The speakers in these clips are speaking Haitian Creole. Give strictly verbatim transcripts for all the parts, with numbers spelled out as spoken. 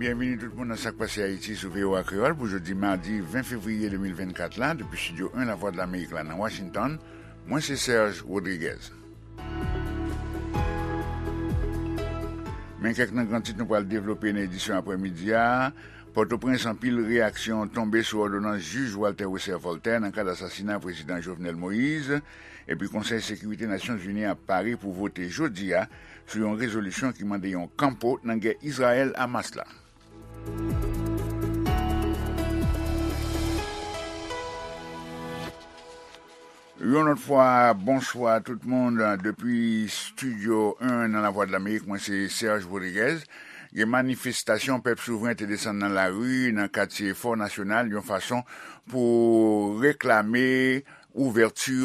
Byenvini tout moun nan Sak Pase Ayiti sou V O A Kreyòl pou jodi madi ven fevriye de mil vennkat la, depi Estidyo en Lavwadlamerik la nan Washington. Mwen se Serge Rodriguez. Men kèk nan gran tit nou pral devlope nan edisyon aprèmidi a. Pòtoprens, anpil reyaksyon tonbe sou òdonans jij Walter Wesser Voltaire nan kad asasina prezidan Jovenel Moïse. Epi Konsèy Sekirite Nasyonzini an pare pou vote jodi a sou yon rezolisyon ki mande yon kanpo nan gè Izrayèl-Hamas la. Yon lòt fwa, bonswa tout moun. Depi Estidyo en nan Lavwadlamerik, mwen se Serge Rodriguez. Gen manifestasyon pèp souvren te desann nan lari nan katye Fò Nasyonal yon fason pou reklame ouvèti,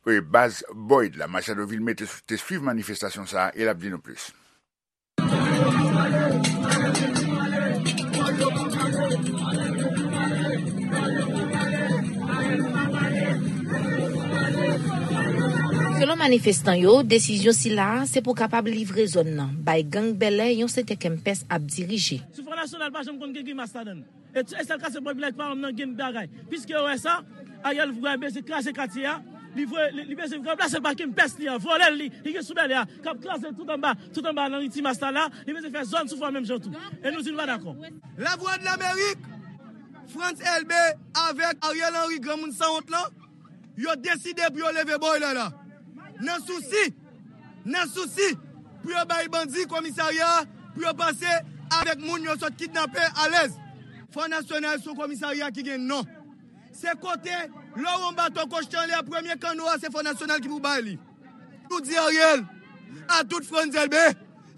e, baz Boyd la. Machado Vilmé te, te swiv manifestasyon sa a e l ap di nou plis. Selon manifestan yo, desizyon sila a se pou kapab livre zòn nan bay gang Bèlè yon sektè Kempès ap dirije. Sou Fò Nasyonal pa janm konn gen grimas ladan l. E, e sèl kase pòt village pa menm nan gen bagay. Piske yo wè sa, Ariel vre bezwen kraze katye a. Li vre, li, li bezwen ranplase l pa Kempès li an, vòlè l li, li gen sou Bèlè a, k ap kraze tout anba, tout anba nan ri Timas la la, li bezwen fè zòn sou fò menm jan tou. E nou di nou pa dakò. Lavwadlamerik, Frantz Elbé avèk Ariel Henry, granmoun sanwont lan, yo deside pou yo leve Boy la la. Nan sousi, nan sousi pou yo bay bandi komisarya a, pou yo pase avèk moun yo sot kidnape alèz. Fò Nasyonal se yon komisarya ki gen non. Se kote, lè w wè yon bato kochte anlè a, premye kanno a, se Fò Nasyonal ki pou bay li. Nou di Ariel, a tout Frantz Elbé,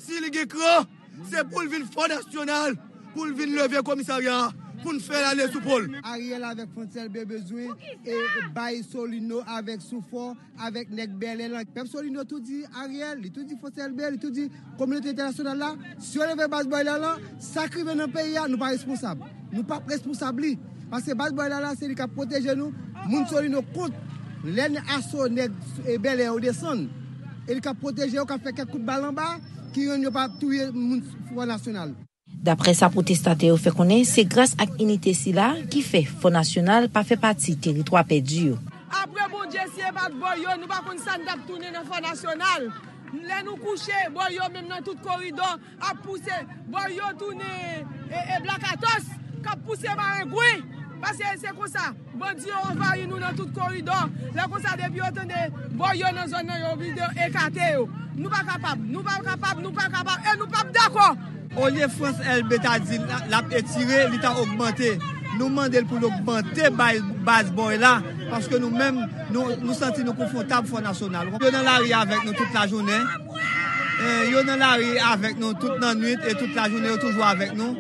si li gen kran, se pou l vin Fò Nasyonal, pou l vin leve komisarya a, pou n fè l ale sou po l. Ariel avèk Frantz Elbé bezwen, e, bay Solino avèk Soufò, avèk nèg Bèlè lan. Pèp Solino tou di Ariel, li tou di Frantz Elbé, li tou di kominote entènasyonal la, si yo leve baz Boy la lan, sa k rive nan peyi a, nou pa responsab. Nou p ap responsab li. Paske baz Boy la la, se li k ap pwoteje nou. Moun Solino kont lè n aso nèg, e, Bèlè yo desann. E li k ap pwoteje yo, k ap fè kèk kout bal anba, ki rann yo pa touye moun Fò Nasyonal. Daprè sa pwotestatè yo fè konnen, se gras ak inite sila ki fè Fò Nasyonal pa fè pati teritwa pèdi yo. Apre Bondye, si e pa t Boy yo, nou pa konn sa n t ap tounen nan Fò Nasyonal. Lè nou kouche, Boy yo menm nan tout koridò ap pouse. Boy yo tounen, e, e, blakatos, k ap pouse marengwen. Paske se konsa. Bandi yo anvayi nou nan tout koridò. Lè konsa, depi yo tande Boy yo nan zòn nan, yo oblije ekate yo. Nou pa kapab, nou pa kapab, nou pa kapab, e nou p ap dakò. Olye Frantz Elbé ta di l, l ap etire, li ta ogmante. Nou mande l pou l ogmante bay, baz Boy la, paske nou menm, nou, nou santi nou konfwontab Fò Nasyonal. Yo nan lari avèk nou tout lajounen. E, yo nan lari avèk nou tout lannwit e tout lajounen, yo toujou avèk nou.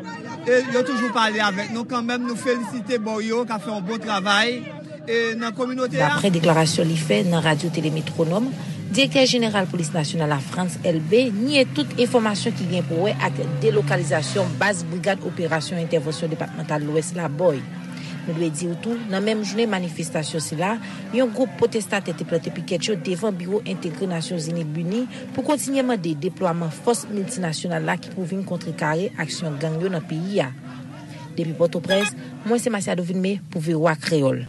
E yo toujou pale avèk nou. Kanmenm, nou felisite Boy yo k ap fè yon bon travay. E nan kominote a. Daprè deklarasyon li fè nan Radyo Tele Metwonòm, direktè jeneral polis nasyonal la, Frantz Elbé, nye tout enfòmasyon ki gen pou wè ak delokalizasyon baz Brigad Operasyon Entèvansyon Depatmantal Lwès la, Boy. Nou dwe di w tou, nan menm jounen manifestasyon sila, yon gwoup pwotestatè te plante pikèt yo devan biwo entegre Nasyonzini BINUH pou kontinye mande deplwaman fòs miltinasyonal la ki pou vin kontrekare aksyon gang yo nan peyi a. Depi Pòtoprens, mwen se Masiado Vilmé pou V O A Kreyòl.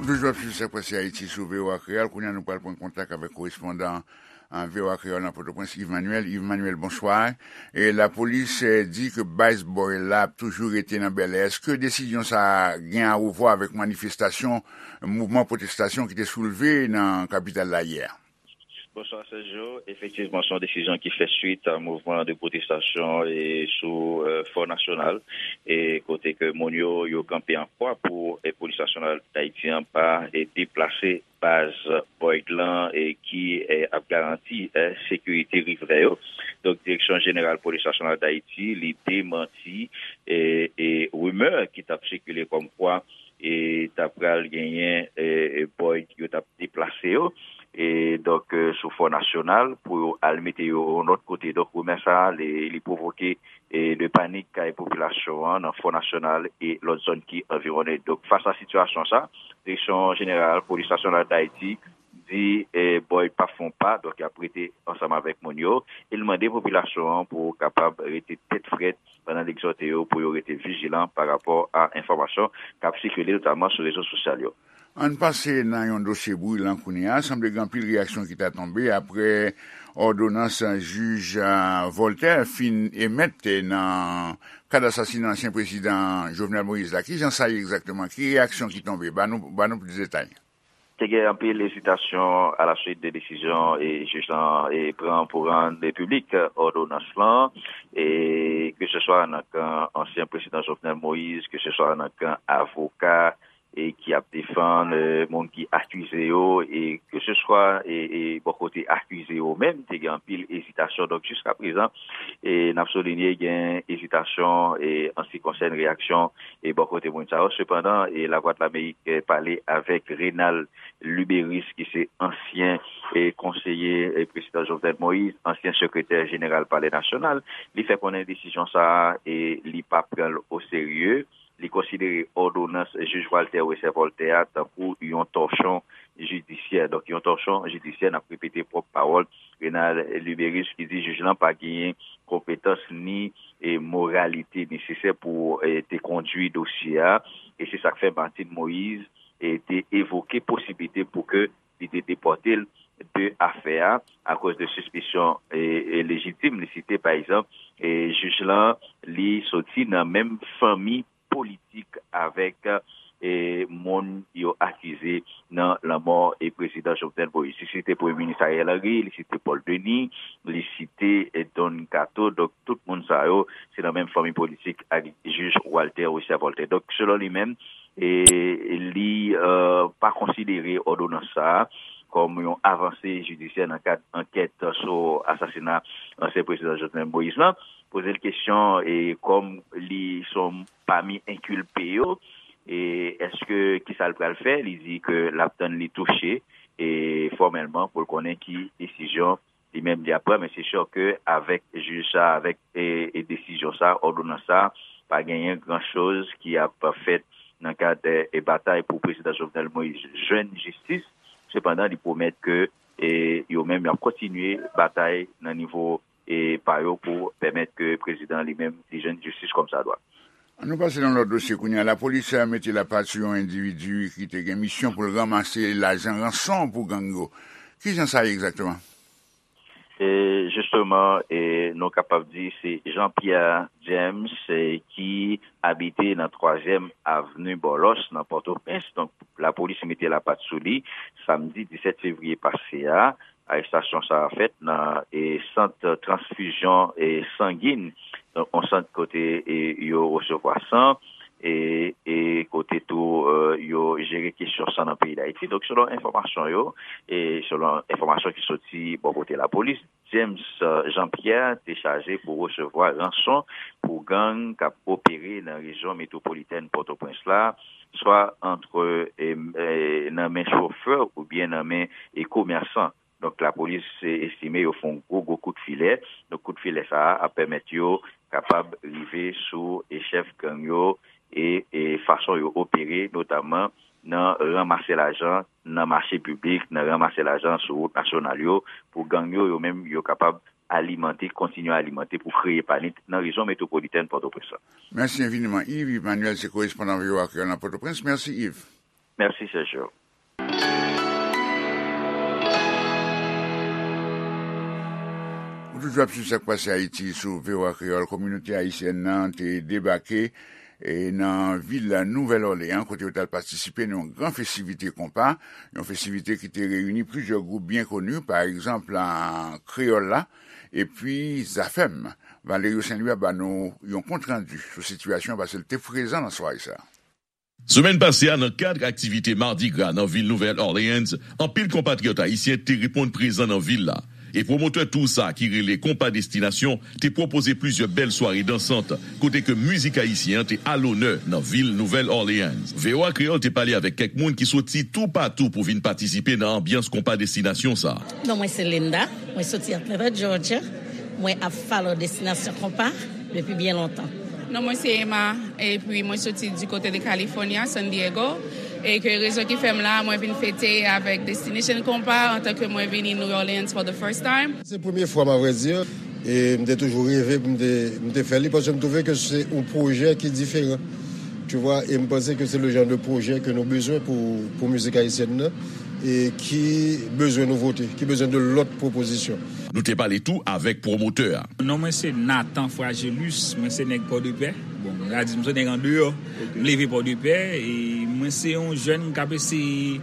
Ou toujou ap swiv Sak Pase Ayiti sou V O A Kreyòl. Kounye a, nou pral pran kontak avèk korespondan, a, V O A Kreyòl nan Pòtoprens, Yves Manuel. Yves Manuel, bonswa. E lapolis, e, di ke baz Boy la ap toujou rete nan Bèlè. Èske desizyon sa a gen a wè avèk manifestasyon, mouvman pwotestasyon ki te soulve nan kapital la yè? Bonswa, Sergio. Efektivman, se yon desizyon ki fè swit a mouvman de pwotestasyon e sou, e, Fò Nasyonal, e kote ke moun yo, yo kanpe an kwa pou, e, Polis Nasyonal Dayiti an pa, e, deplase baz Boyd lan, e, ki, e, ap garanti, e, sekirite rivrè yo. Donk, Direksyon Jeneral Polis Nasyonal Dayiti, li demanti, e, e, rimè ki t ap sikile kòmkwa, e, ta pral genyen, e, e, Boyd yo t ap deplase yo. e donk, e, sou Fò Nasyonal pou yo al mete yo yon lòt kote. Donk, rimè sa a, li, li pwovoke, e, de panik kay popilasyon an nan Fò Nasyonal e lòt zòn ki anviwonnen. Donk, fas a sitiyasyon sa, Direksyon Jeneral Polis Nasyonal d Ayiti di, e, Boyd p ap fè yon pa, donk y ap rete ansanm avèk moun yo, e l mande popilasyon an pou kapab rete tèt frèt pandan l egzòte yo pou yo rete vijilan pa rapò a enfòmasyon k ap sikile, notaman sou rezo sosyal yo. Ann pase nan yon dosye brilan kounye a. Sanble gen anpil reyaksyon ki ta tonbe apre òdonans jij, a, Voltaire fin emèt nan kad asasina ansyen prezidan Jovenel Moïse la. Kijan sa ye egzakteman? Ki reyaksyon ki tonbe? Ba nou, ba nou plis detay. Te gen anpil ezitasyon alaswit de desizyon e jij lan e pran pou rann piblik òdonans lan, e ke se swa nan kan ansyen prezidan Jovenel Moïse, ke se swa nan kan avoka e ki ap defann, e, moun ki akize yo, e ke se swa, e, e, bò kote akize yo menm, te gen anpil ezitasyon. Donk, jiska prezan, e, n ap soulinye gen ezitasyon, e, an se ki konsène reyaksyon, e, bò kote moun sa yo. Sepandan, e, Lavwadlamerik, e, pale avèk Renald Luberice, ki se ansyen, e, konseye, e, prezidan Jovenel Moïse, ansyen sekretè jeneral Palè Nasyonal. Li fè konnen desizyon sa a, e, li pa pran l oserye. Li konsidere òdonans jij Walter Wesser Voltaire a tankou yon tòchon jidisyè. Donk, yon tòchon jidisyè, n ap repete pwòp pawòl Renald Luberice, ki di jij lan pa genyen konpetans ni, e, moralite nesesè pou, e, te kondui dosye a, e se sa k fè Martine Moïse, e, te evoke posiblite pou ke li te depòte l de afè a, akoz de sispesyon, e, e, lejitim. Li site, pa egzanp, e, jij lan, li soti nan menm fanmi politik avèk, e, moun yo akize nan lanmò, e, prezidan Jovenel Moïse. Li site Premye Minis Ariel Henry, li site Paul Denis, li site, e, Don Kato. Donk, tout moun sa yo, se nan menm fanmi politik ak jij Walter Wesser Voltaire. Donk, selon li menm, e, li, e, pa konsidere òdonans sa a kòm yon avanse jidisyè nan kad ankèt sou asasina ansyen prezidan Jovenel Moïse lan. Poze l kesyon, e, kòm li se yon pami enkilpe yo, e, èske, kisa l pral fè? Li di ke l ap tann li touche, e, fòmèlman pou l konnen ki desizyon li menm li ap pran, men se si ke avèk jij sa, avèk, e, e, desizyon sa, òdonans sa, pa genyen gran choz ki ap fèt nan kad, e, batay pou prezidan Jovenel Moïse jwenn jistis. Sepandan, li pwomèt ke, e, yo menm y ap kontinye batay nan nivo, e, pa yo pou pèmèt ke prezidan li menm li jwenn jistis kòmsadwa. Ann nou pase nan lòt dosye kounye a. Lapolis, e, mete lapat sou yon endividi ki te gen misyon pou l ranmase lajan ranson pou gang yo. Kijan sa ye egzakteman? E, jisteman, e, nou kapab di se Jean Pierre James, e, ki abite nan twazyèm avni Bòlòs, nan Pòtoprens. Donk, lapolis mete lapat sou li samdi disèt fevriye pase a. Arestasyon sa a fèt nan, e, sant transfizyon, e, sangin, donk, yon sant kote, e, yo resevwa san, e, e kote tou, e, yo jere kesyon san nan peyi Dayiti. Donk, selon enfòmasyon yo, e selon enfòmasyon ki soti bò kote lapolis, James, e, Jean Pierre te chaje pou resevwa ranson pou gang k ap opere nan rejyon metwopolitèn Pòtoprens la, swa antre, e, e, nan men chofè oubyen nan men, e, komèsan. Donk, lapolis, e, estime yo fè yon gwo, gwo kout filè. Donk, kout filè sa a ap pèmèt yo kapab rive sou, e, chèf gang yo e, e fason yo opere, notaman nan ranmase lajan nan mache piblik, nan ranmase lajan sou wout nasyonal yo, pou gang yo, yo menm, yo kapab alimante, kontinye alimante pou kreye panik nan rejyon metwopolitèn Pòtoprens lan. Mèsi enfiniman, Yves. Yves Manuel se korespondan V O A Kreyòl nan Pòtoprens. Mèsi, Yves. Mèsi, Sergio. Ou toujou ap swiv sa k pase Ayiti sou V O A Kreyòl. Kominote ayisyèn nan te debake, e, nan vil Nouvèl Òleyan, kote yo t al patisipe nan yon gran festivite konpa, yon festivite ki te reyini plizyè gwoup byen koni, pa egzanp, a, Kreyòl la, epi Zafèm. Valerio Saint-Louis ap ba nou yon kontrandi sou sitiyasyon, paske l te prezan nan sware sa a. Semèn pase a, nan kad aktivite Mardi Gras nan vil Nouvèl Orleans, anpil konpatriyòt ayisyen te reponn prezan nan vil la. E pwomotè tou sa ki rele Konpa Destinasyon te pwopoze plizyè bèl sware dansant, kote ke mizik ayisyen an te alonè nan vil Nouvèl Orleans. V O A Kreyòl te pale avèk kèk moun ki soti toupatou pou vin patisipe nan anbyans Konpa Destinasyon sa. Non, mwen se Linda, mwen soti Atlanta, Georgia. Mwen ap follow Destinasyon Konpa depi byen lontan. Non, mwen se Emma, epi mwen soti du côté de California, San Diego, e ke rezon ki fè m la, mwen vin fete avèk Destination Compas antan ke mwen vini New Orleans for the first time. Se premye fwa m, a vrai dire, e m te toujou reve pou m te, m te fè li, paske m twouve ke se yon pwojè ki diferan. Tu vois, e m panse ke se le genre de projet ke nou bezwen pou, pou mizik ayisyèn nan, e ki bezwen nouvote, ki bezwen de lòt pwopozisyon. Nou te pale tou avèk pwomotè a. Non mwen se Nathan Fragilus, mwen se nèg Pòdepè. Bon, mwen ka di m se nèg andeyò. M leve Pòdepè, e mwen se yon jèn k ap eseye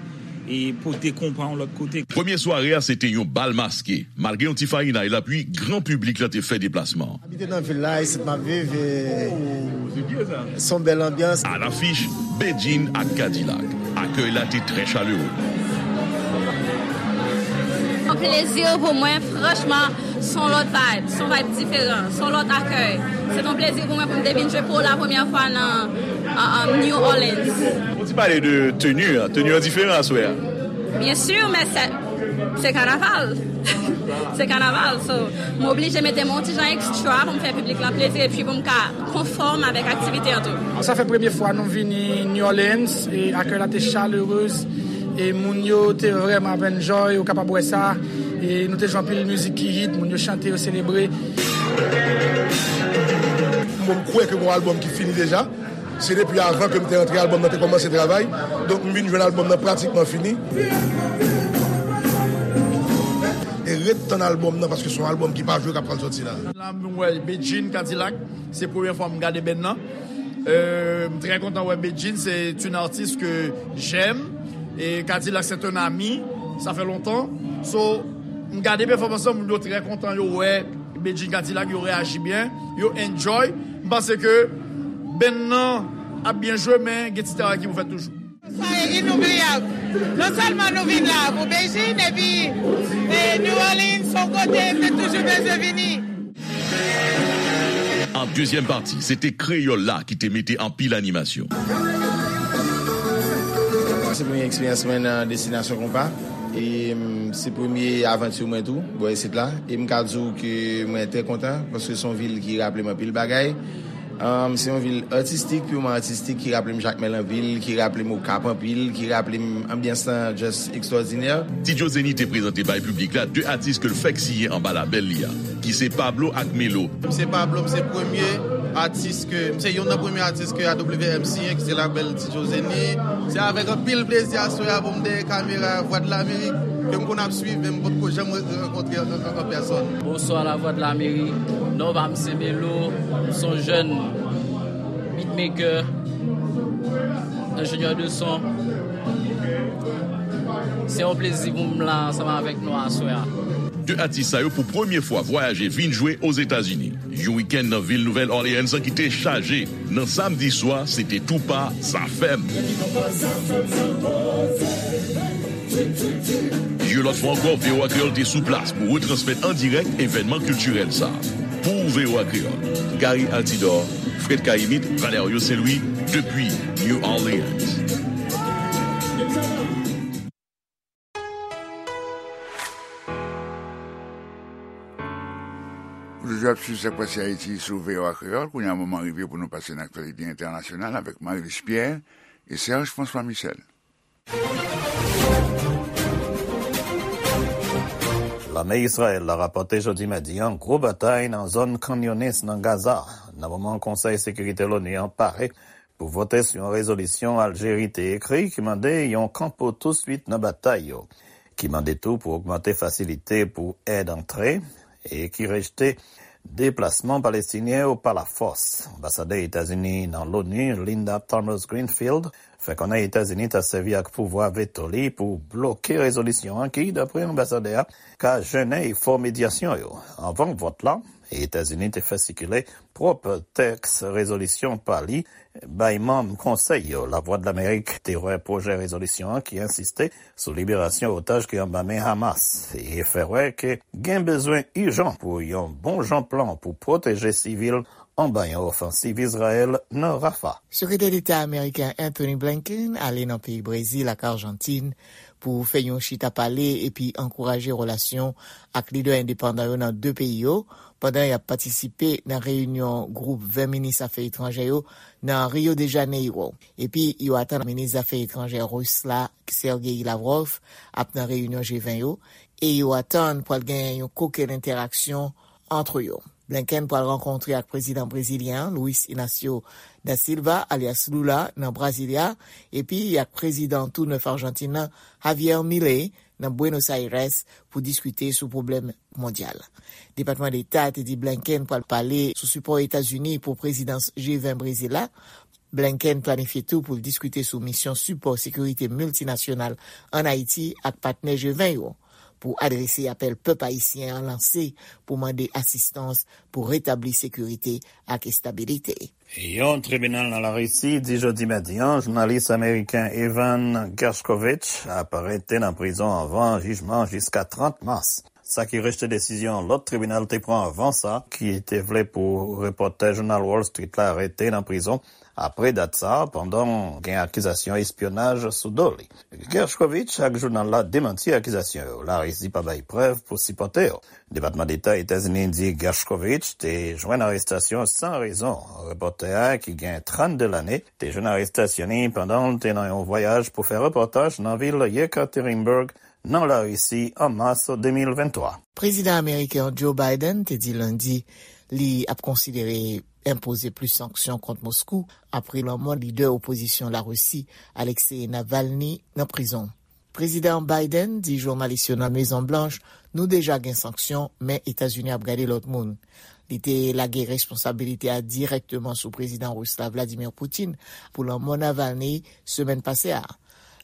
e pote konpa yon lòt kote. Premye sware a se te yon bal maske. Malgre yon ti farinay lapli, gran piblik la te fè deplasman. Abite nan vil la, isit m ap viv, e se yon bèl anbyans. Alafich, Bedjine ak Kadilak. Akèy la te trè chalere. Yon plezi pou mwen, franchman, se yon lòt vibe, se yon vibe diferan, se yon lòt akèy. Se yon plezi pou mwen pou m te vin jwe pou la premyè fwa nan, an, an New Orleans. Ou ti pale de teni an, teni an diferan aswè a. Byen si, men se, se kanaval. Se kanaval, so, m oblije mete m yon ti jan ekstra pou m fè piblik la plezi epi pou m ka konfòm avèk aktivite an tou. Sa fè premye fwa nou vini New Orleans e akèy la te chaleureuse e moun yo te vrèman ap enjoy, ou kapab wè sa. E nou te jwe anpil mizik ki hit, moun yo chante, yo selebre. Bon, m kwè ke gon albòm ki fini deja. Se depi avan ke m te antre, albòm nan te kòmanse travay. Donk, m vin jwenn albòm nan pratikman fini. E ret tann albòm nan, paske se yon albòm ki pa jwe k ap pral sòti la. La, m wè Bedjine Kadilak, se premye fwa m gade band nan. Euh, m trè kontan wè Bedjine, c'est une artiste que j'aime. E Kadilak, c'est un ami, ça fait longtemps. So, m gade pèfòmans lan, moun yo trè kontan, yo wè Bedjine Kadilak, yo reyaji byen, yo enjoy. M panse ke band nan ap byen jwe, men gen ti travay ki pou fèt toujou. Sa e inoubliyab. Non sèlman nou vin la pou Bedjine, epi, e, New Orleans, se yon kote m te toujou bezwen vini. An dezyèm pati, se te Kreyòl la ki te mete anpil animasyon. Se premye eksperyans mwen nan Destinasyon Konpa. E, mm, se premye avanti mwen tou, bò isit la. E m ka di w ke mwen trè kontan, paske se yon vil ki raple m anpil bagay. Um, se yon vil atistik, piman atistik, ki raple m Jakmèl anpil, ki raple m Okap anpil, ki raple m anbyans lan just ekstwòdinè. Ti Joe Zenny te prezante bay piblik la de atis ke l fèk siyen anba labèl li a, ki se Pablo ak Melo. M se Pablo, m se premye atis ke, m se youn nan premye atis ke A W M siyen, ki se labèl Ti Joe Zenny. Se avèk anpil plezi aswè a pou m dèyè kamera Vwadlamerik, ke m konn ap swiv, men m potko janm rankontre an, an, an pèsòn. Bonswa, Lavwadlamerik. Non pa m se Melo. M se yon jèn beatmaker, enjenyè de son. Se yon plezi pou m la ansanm avèk nou aswè a. De atis sa yo pou premye fwa vwayaje vin jwe Ozetazini. Yon wikenn nan vil Nouvèl Orleans ki te chaje. Nan samdi swa, se te tou pa Zafèm. Yon lòt fwa ankò, V O A Kreyòl te sou plas pou retransmèt an dirèk evènman kiltirèl sa a. Pou V O A Kreyòl, Gary Altidor, Fred Cahimite, Valerio Saint-Louis, depi New Orleans. Ou toujou ap swiv Sa k Pase Ayiti sou V O A Kreyòl. Kounye a, moman rive pou nou pase nan aktyalite entènasyonal avèk Marie-Luce Pierre e Serge François Michel. Lame Izrayèl la rapòte jodi madi an gwo batay nan zòn Khan Younis nan Gaza, nan moman Konsèy Sekirite Loni an pare pou vote sou yon rezolisyon Aljeri te ekri ki mande yon kanpo touswit nan batay yo, ki mande tou pou ogmante fasilite pou èd antre e ki rejte deplasman Palestinyen yo pa lafòs. Anbasadè Etazini nan Loni, Linda Thomas-Greenfield, fè konnen Etazini ta sèvi ak pouvwa veto li pou bloke rezolisyon an ki, dapre anbasadè a, ka jennen efò medyasyon yo. Anvan vòt la, Etazini te fè sikile pwòp tèks rezolisyon pa li bay manm konsèy yo. Lavwadlamerik te wè pwojè rezolisyon an ki ensiste sou liberasyon otaj ki anba men Hamas e fè wè ke gen bezwen ijan pou yon bon jan plan pou pwoteje sivil anba yon ofansiv Izrayèl nan Rafah. Sekretè Deta ameriken Antony Blinken ale nan peyi Brezil ak Ajantin pou fè yon chita pale epi ankouraje relasyon ak lidè endepandan yo nan de peyi yo, pandan y ap patisipe nan reyinyon gwoup ven minis afè etranjè yo nan Rio de Janeiro. Epi yo atann minis zafè etranjè ris la, Sergei Lavrov, ap nan reyinyon G ven yo, e yo atann pral gen yon kokenn entèraksyon ant yo. Blinken pral rankontre ak prezidan brezilyen an, Luiz Inácio da Silva, alyas Lula, nan Brasilia, epi ak prezidan tou nèf Ajantin nan, Javier Milei, nan Buenos Aires, pou diskite sou pwoblèm mondyal. Depatman Deta te di Blinken pral pale sou sipò Etazini pou prezidans G ven Brezil la. Blinken planifye tou pou l diskite sou misyon sipò sekirite miltinasyonal ann Ayiti ak patnè G ven yo, pou adrese apèl pèp ayisyen an lanse pou mande asistans pou retabli sekirite ak estabilite. Yon tribinal nan Larisi di jodi madi a, jounalis ameriken Evan Gershkovich ap rete nan prizon anvan jijman jiska trant mas. Sa ki rejte desizyon lòt tribinal te pran anvan sa, ki te vle pou repòtè jounal Wall Street la rete nan prizon apre dat sa, pandan gen akizasyon espyonaj sou do li. Gershkovich ak jounal la demanti akizasyon yo. Larisi pa bay prèv pou sipòte yo. Depatman Deta Etazini di Gershkovich te jwenn arestasyon san rezon. Repòtè a, ki gen trannde lane, te jwenn arestasyon li pandan l te nan yon vwayaj pou fè repòtaj nan vil Yekaterinburg, nan Larisi, an mas de mil venntwa. Prezidan ameriken Joe Biden te di Lendi li ap konsidere enpoze plis sanksyon kont Moskou apre lanmò lidè opozisyon Larisi, Alexei Navalny, nan prizon. Prezidan Biden di jounalis yo nan Mezon Blanch, nou deja gen sanksyon, men Etazini ap gade lòt moun. Li te lage responsabilite a dirèkteman sou prezidan ris la, Vladimir Putin, pou lanmò Navalny semèn pase a.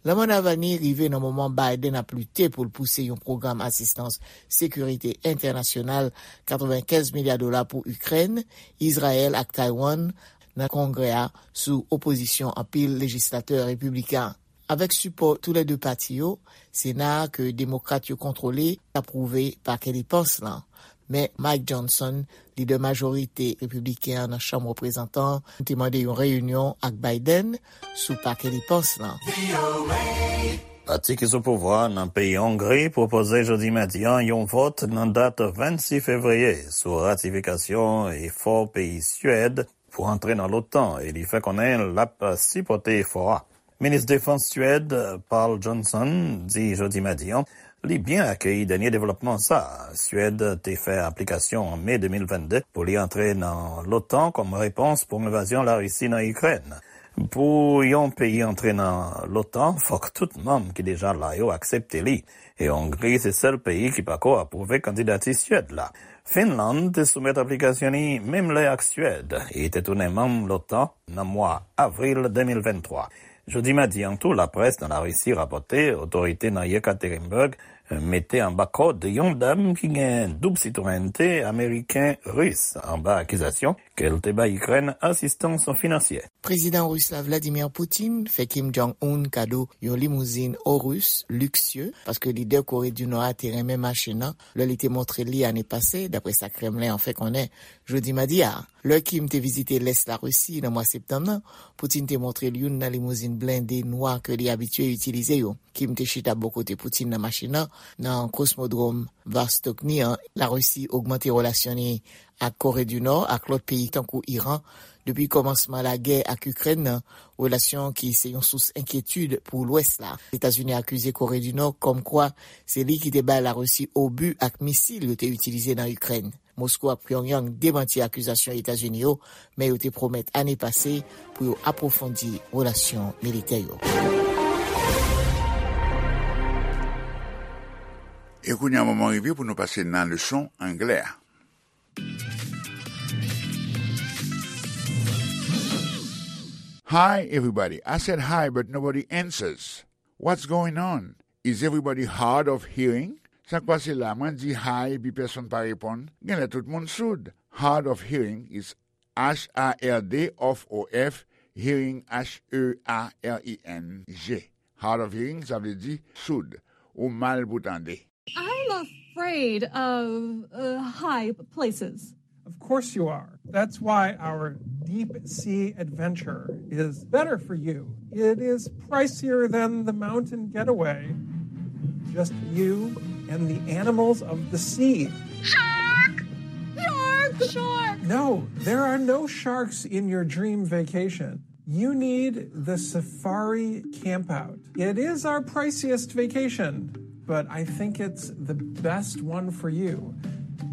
Lanmò Navalny rive nan moman Biden ap lite pou l pouse yon pwogram asistans sekirite entènasyonal katrevenkenz milya dola pou Ikrèn, Izrayèl ak Taiwan nan Kongrè a sou opozisyon anpil lejislatè repibliken. Avèk sipò toulède pati yo, Sena a ke Demokrat yo kontwole apwouve pakè depans lan. Men Mike Johnson, lidè majorite repibliken an nan Chanm Reprezantan an, te mande yon reyinyon ak Biden sou pakè depans lan. Pati ki sou pouvwa nan peyi Ongri pwopoze jodi madi a yon vòt nan dat vennsis fevriye sou ratifikasyon efò peyi Syèd pou antre nan l'OTAN, e li fè konnen l ap sipòte efò a. Minis Defans Syèd, Pål Jonson, di jodi madi a li byen akeyi dènye devlòpman sa a. Syèd te fè aplikasyon an me de mil vennde pou li antre nan l'OTAN kòm repons pou envazyon Larisi nan Ikrèn. Pou yon peyi antre nan l'OTAN, fòk tout manm ki deja la yo aksepte li. E Ongri se sèl peyi ki pako apwouve kandidati Syèd la. Finlann te soumèt aplikasyon li menm lè ak Syèd e te tounen manm l'OTAN nan mwa avril de mil venntwa. Jodi madi a tou, laprès nan Larisi rapòte otorite nan Yekaterinburg mete anba kòd yon dam ki gen doub sitwayènte ameriken-ris anba akizasyon ke l te bay Ikrèn asistans finansyè. Prezidan ris la, Vladimir Putin, fè Kim Jong-un kado yon limouzin Aurus liksye, paske lidè Kore di Nò a te renmen machin nan lè li te montre l li ane pase, dapre sa Kremlen an fè konnen jodi madi a. Lè Kim te vizite lès Larisi nan mwa septanm nan, Putin te montre l youn nan limouzin blende nwa ke li abitye itilize yo. Kim te chita bò kote Putin nan machin nan, nan kosmodwòm Vostokny an. Larisi ogmante relasyon li ak Kore di Nò ak lòt peyi tankou Iran depi kòmansman lagè ak Ikrèn nan, relasyon ki se yon sous enkyetid pou Lwès la. Etazini akize Kore di Nò kòmkwa se li ki te bay Larisi obi ak misil yo te itilize nan Ikrèn. Moskou ak Pyongyang demanti akizasyon Etazini yo, men yo te pwomèt ane pase pou yo apwofondi relasyon militè yo. E kounye a, moman rive pou nou pase nan leson anglè a. Hi, everybody. I said hi, but nobody answers. What's going on? Is everybody hard of hearing? Sa k pase la? Mwen di hi epi pèsonn pa reponn. Genlè tout moun soud. Hard of hearing is H A R D of O F, hearing H E A R I N G. Hard of hearing, sa vle di soud, ou mal pou tande. I'm afraid of uh, high places. Of course you are. That's why our deep sea adventure is better for you. It is pricier than the mountain getaway. Just you and the animals of the sea. Shark! Shark! Shark! No, there are no sharks in your dream vacation. You need the safari campout. It is our priciest vacation, but I think it's the best one for you.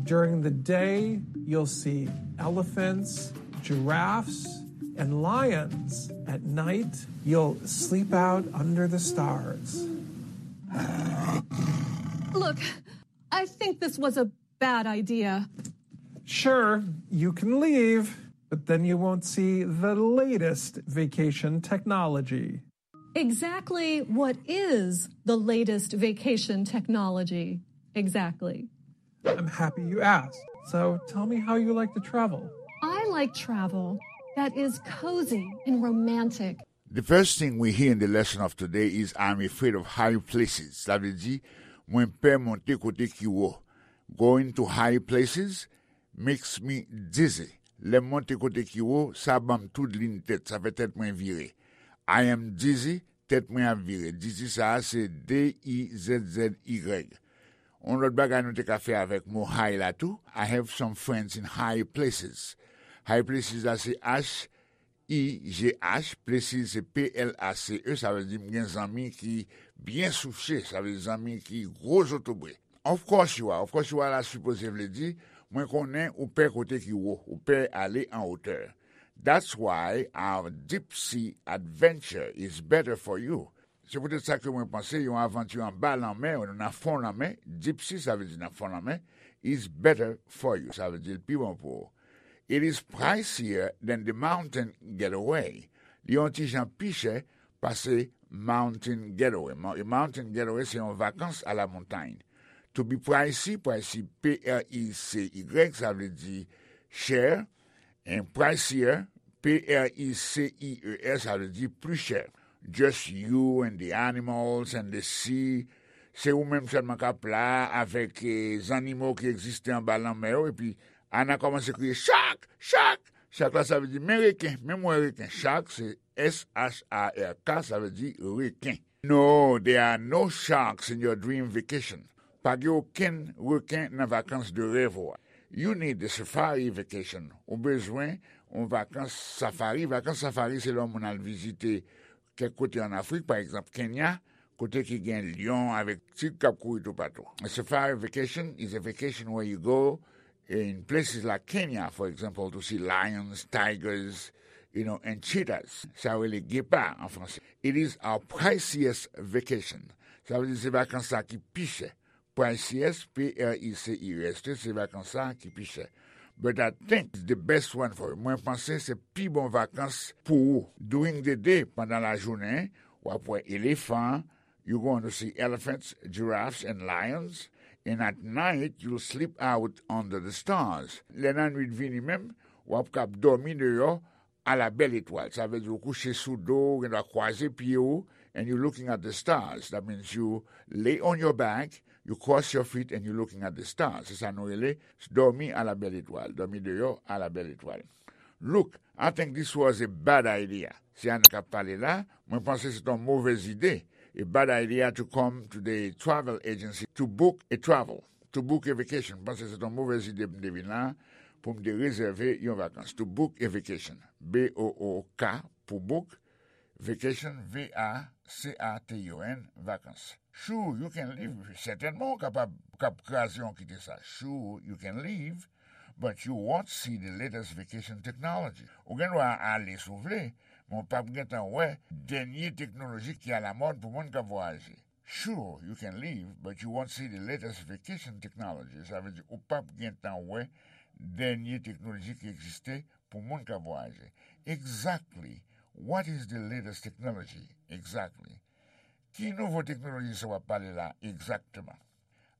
During the day, you'll see elephants, giraffes, and lions. At night, you'll sleep out under the stars. Look, I think this was a bad idea. Sure, you can leave, but then you won't see the latest vacation technology. Exactly what is the latest vacation technology? Exactly. I'm happy you asked. So tell me how you like to travel. I like travel that is cozy and romantic. The first thing we hear in the lesson of today is I'm afraid of high places. Sa vle di, mwen pè monte kote ki wo. Going to high places makes me dizzy. Lè m monte kote ki wo, sa ban m toudlin tèt, sa fè tèt mwen vire. I am dizzy, tèt mwen ap vire. Dizzy sa a se D I Z Z Y. Yon lòt bagay nou te ka fè avèk mo high la tou. I have some friends in high places. High places la se H I G H, places se P L A C E, sa vle di m gen zanmi ki byen souche, sa vle di zanmi ki gwo zotobre. Of course you are, of course you are la sipoze vle di, mwen konnen ou pè kote ki wo, ou pè ale an wotè. That's why our deep sea adventure is better for you. Se poutèt sa ke mwen panse yon avanti anba lanmè, nan fon lanmè, deep sea sa vle di nan fon lanmè, is better for you, sa vle di l pi bon pou ou. It is pricier than the mountain getaway. Li yon ti jan pi chè pase mountain getaway. Mo- Mountain getaway se yon vakans a la montagne. To be pricey, pricey, P R I C Y, sa vle di chè. And pricier, P R I C I E R, sa vle di pli chè. Just you and the animals and the sea. Se ou menm sèlman k ap la avèk eh, zannimo ki egziste anba lanmè yo. Epi Ana kòmanse kriye, "Shark! Shark!" Shark la, sa vle di, "Men reken, men m wè reken." Shark, se S H A R K, sa vle di reken. No, there are no sharks in your dream vacation. Pa gen okenn reken nan vakans de rèv ou a. You need the safari vacation. Ou bezwen yon vakans safari. Vakans safari, se lè yon moun al vizite kèk kote an Afrik, pa egzanp, Kenya, kote ki gen lyon avèk tig k ap kouri toupatou. A safari vacation is a vacation where you go in places like Kenya, for example, to see lions, tigers, you know, and cheetahs. Sa yo rele gepa an franse. It is our priciest vacation. Sa vle di se vakans sa ki pi chè. Priciest, P R I C I E S T, se vakans sa ki pi chè. But I think it's the best one for you. Mwen panse se pi bon vakans pou ou. During the day, pandan lajounen, w ap wè elefan, you going to see elephants, giraffes and lions, and at night you'll sleep out under the stars. Lè nan nwit vini menm, w ap kab dòmi deyò a la bèl etwal. Sa vle di ou kouche sou do, ou gen dwa kwaze pye ou, and you looking at the stars. That means you lay on your back, you cross your feet and you looking at the stars. Se sa nou rele dòmi a la bèl etwal, dòmi deyò a la bèl etwal. Look, I think this was a bad idea. Se Ana k ap pale la, mwen panse se yon movèz ide. A bad idea to come to the travel agency to book a travel, to book a vacation. Mwen panse se yon movèz ide pou m te vin la, pou m te rezève yon vakans. To book a vacation. B O O K pou book, vacation, V A C A T I O N, vakans. Sure, you can leave. Sètènman, ou kapab, ou kab kraze yon kite sa. Sure, you can leave, but you won't see the latest vacation technology. Ou gen dwa ale si w vle, men w p ap gentan wè dènye teknoloji ki alamòd pou moun k ap vwayaje. Sure, you can leave, but you won't see the latest vacation technology. Sa vle di, ou p ap gentan wè dènye teknoloji ki egziste pou moun k ap vwayaje. Exactly. What is the latest technology? Exactly. Ki nouvo teknoloji sa w ap pale la egzakteman?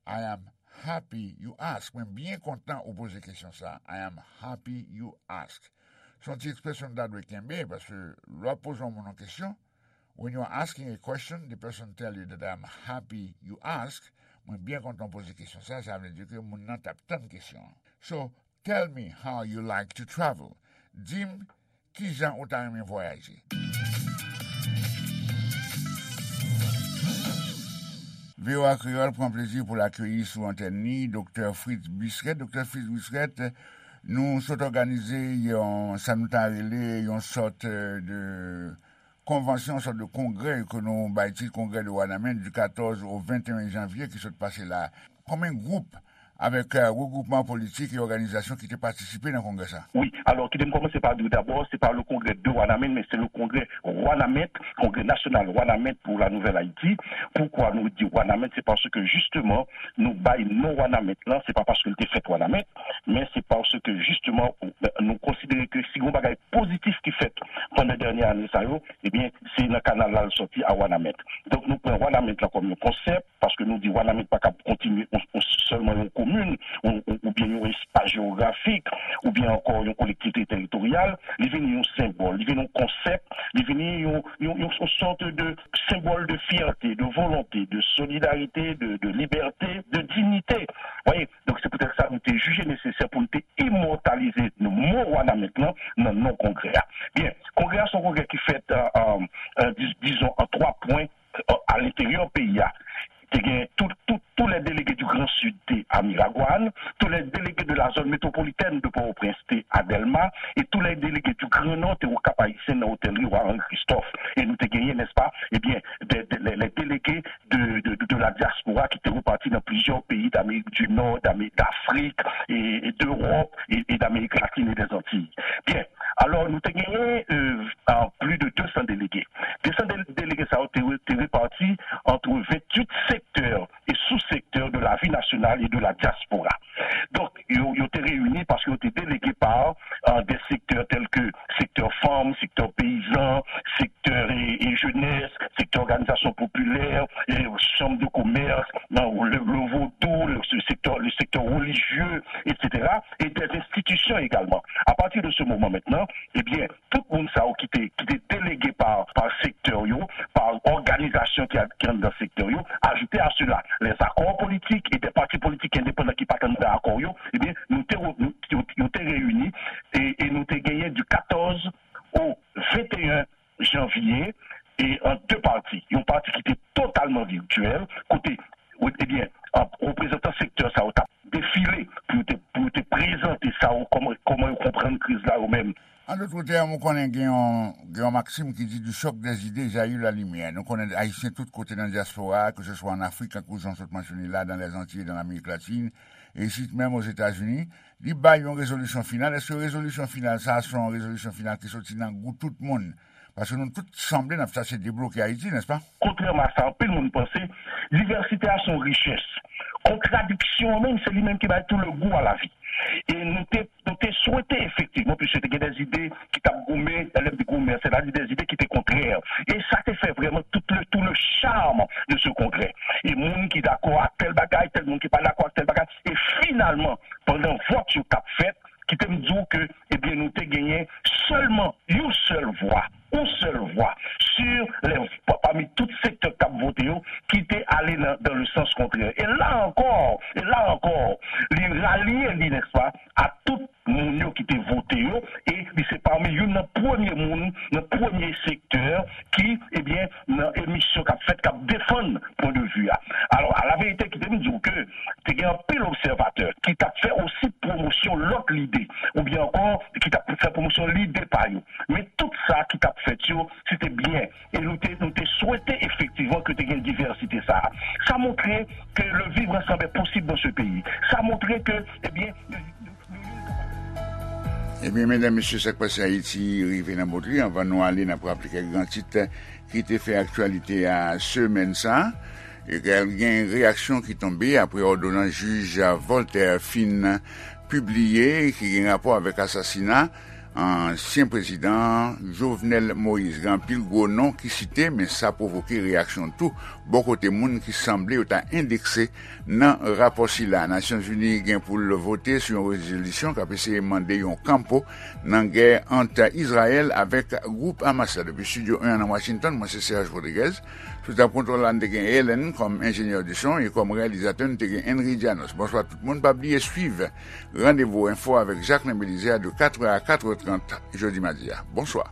I am happy you ask. Mwen byen kontan ou poze kesyon sa. I am happy you ask. Se yon ti ekspresyon nou ta dwe kenbe, paske lè w ap poze yon moun yon kesyon, when you are asking a question, the person tell you that I am happy you ask. Mwen byen kontan w poze kesyon sa, sa vle di ke moun nan t ap tann kesyon an. So, tell me how you like to travel. Di m kijan ou ta renmen vwayaje. V O A Kreyòl pran plezi pou l akeyi sou antèn li Doktè Fritz Buisret. Doktè Fritz Buisret, nou sot òganize yon, sa nou ta rele yon sòt, euh, de konvansyon, yon sòt de kongrè ke nou bay tit Congrès de Wanament du quatorze au vingt et un janvier ki sot pase la. Konbyen gwoup avèk, euh, regwoupman politik e òganizasyon ki te patisipe nan kongrè sa? Wi, alò, kite m kòmanse pa di w dabò, se pa le congrès de Wanament, mais c'est le congrès Wanament, Congrès National Wanament pour la Nouvelle Haïti. Poukwa nou di Wanament? Se paske, jisteman, nou bay non Wanament lan, se pa paske l te fèt Wanament, men se paske, jisteman, nou konsidere ke si gen yon bagay pozitif ki fèt pandan dènye ane sa yo, ebyen, se nan kanal la l sòti a Wanament. Donk, nou pran Wanament lan kòm yon konsèp, paske nou di Wanament pa kab kontinye yon, yon, sèlman yon komin, yon, yon, oubyen yon espas jewografik, oubyen ankò yon kolektivite teritoryal. Li vini yon senbòl, li vini yon konsèp, li vini yon, yon, yon, yon sòt de senbòl de fyète, de volonte, de solidarite, de, de libète, de diyite. Voyez, donk, se poutèt sa nou te jije nesesè pou nou te imòtalize mo Wanament lan nan non kongrè a. Byen, kongrè a se yon kongrè ki fèt, euh, euh, euh, dis-, dizon, an twa pwen, euh, a lenteryè peyi a. Te gen tout, tout, tous les délégués du Grand Sud te a Miragwàn, tous les délégués de la zone métropolitaine de Port-au-Prince te a Dèlma, e tous les délégués du Grand Nord te o Cap Haïtien nan otèl Riwa Henri Christophe. E nou te genyen, n'est-ce pas, ebyen, de, de, les, les délégués de, de, de, de la diaspora ki te reparti nan plizyè peyi d'Amérique du Nord, d'Amé-, d'Afrique, et, et d'Europe, et, et d'Amérique latine et des Antilles. Byen, alò, nou te genyen, euh, euh, plus de deux cents délégués. Deux cents dé-, délégués sa yo te re-, te reparti entre vingt-huit secteurs et sous-secteurs de la vie nationale et de la diaspora. Donk, yo, yo te reyini paske yo te délégués par, euh, des secteurs tels que secteur fanm, secteur peyizan, secteur et, et jeunesse, secteur organisation populaire, et chambre de commerce, non, le, le vaudou, le, le secteur, le secteur religieux, et cetera, et des institutions également. À partir de ce moment maintenant, eh bien, tout moun sa yo ki te, ki te délégués par, par secteur yo, par òganizasyon ki a, ki anndan sektè yo, ajoute à cela, les accords politiques et des partis politiques indépendants ki pa t anndan akò yo, ebyen, nou te, nou, yo, yo te reyini e, e nou te genyen du quatorze au vingt et un janvier, e an de pati. Yon pati ki te totalman virtyèl, kote, ebyen, reprezantan sektè sa yo t ap defile pou yo te, pou yo te prezante sa yo, kòman, kòman yo konprann kriz la yo menm. An dòt tèm, ou konnen gen yon, gen yon maksim ki di, du choc des idées jaillit la lumière. Nou konnen Ayisyen tout kote nan dyaspora a, ke se swa an Afrik, tankou jan w sot mansyone la, dans les Antilles, dans l'Amérique latine, e isit menm Ozetazini, li bay yon rezolisyon final. Èske rezolisyon final sa a se yon rezolisyon final ki soti nan gou tout moun? Paske nou tout sanble n ap chache debloke Ayiti, nèspa? Kontrèman a sa anpil moun panse, divèsite a se yon richès. Kontradiksyon an menm, se li menm ki bay tout le goût à la vie. E nou te, nou te swete efektivman, piske te gen des idées ki t ap goumen, lè m di goumen, c'est-à-dire des idées qui étaient contraires. E sa te fè vrèman tout le, tout le charme de ce congrès. E moun ki dakò ak tèl bagay, tèl moun ki pa dakò ak tèl bagay. E finalman, pandan vòt yo t ap fèt, kite m di w ke, ebyen, nou te genyen sèlman yon sèl vwa, yon sèl vwa, sur les, pa-, pami tout sektè k t ap vote yo, ki te ale nan, dans le sens contraire. E la ankò, e la ankò, li ralye li, nèspa, a tout moun yo ki te vote yo, e li se pami youn nan premye moun, nan premye sektè ki, ebyen, nan emisyon k ap fèt, k ap defann pwen de vi a. Alò, a la verite, kite m di w ke te gen anpil obsèvatè ki t ap fè osi pwomosyon lòt lide, oubyen ankò ki t ap fè pwomosyon lide pa yo. Men tout sa ki t ap fèt yo, se te byen. E nou te, nou te swete efektivman ke te gen divèsite sa a. Sa montre que le vivre ensemble est possible dans ce pays. Sa montre ke, ebyen, Ebyen, medam, mesye, Sak Pase Ayiti rive nan bout li. Anvan nou ale, n ap raple kèk gran tit ki te fè aktyalite a semèn sa a. E gen reyaksyon ki tonbe apre òdonans jij Voltaire fin pibliye ki gen rapò avèk asasina Ansyen prezidan Jovenel Moïse. Gen anpil gwo non ki site, men sa pwovoke reyaksyon tou bò kote moun ki sanble yo ta endekse nan rapò sila. Nasyonzini gen pou l vote sou yon rezolisyon k ap eseye mande yon kanpo nan gè ant Izrayèl avèk gwoup Hamas la. Depi Estidyo en an nan Washington, mwen se Serge Rodriguez. Sou tab kontwòl la, n te gen Ellen kòm enjenyè de son e kòm reyalizatè, n te gen Henry Janos. Bonswa tout moun. Pa bliye swiv Randevou Enfo avèk Jacquelin Belizaire de katrè a katrè trant jodi madi a. Bonswa.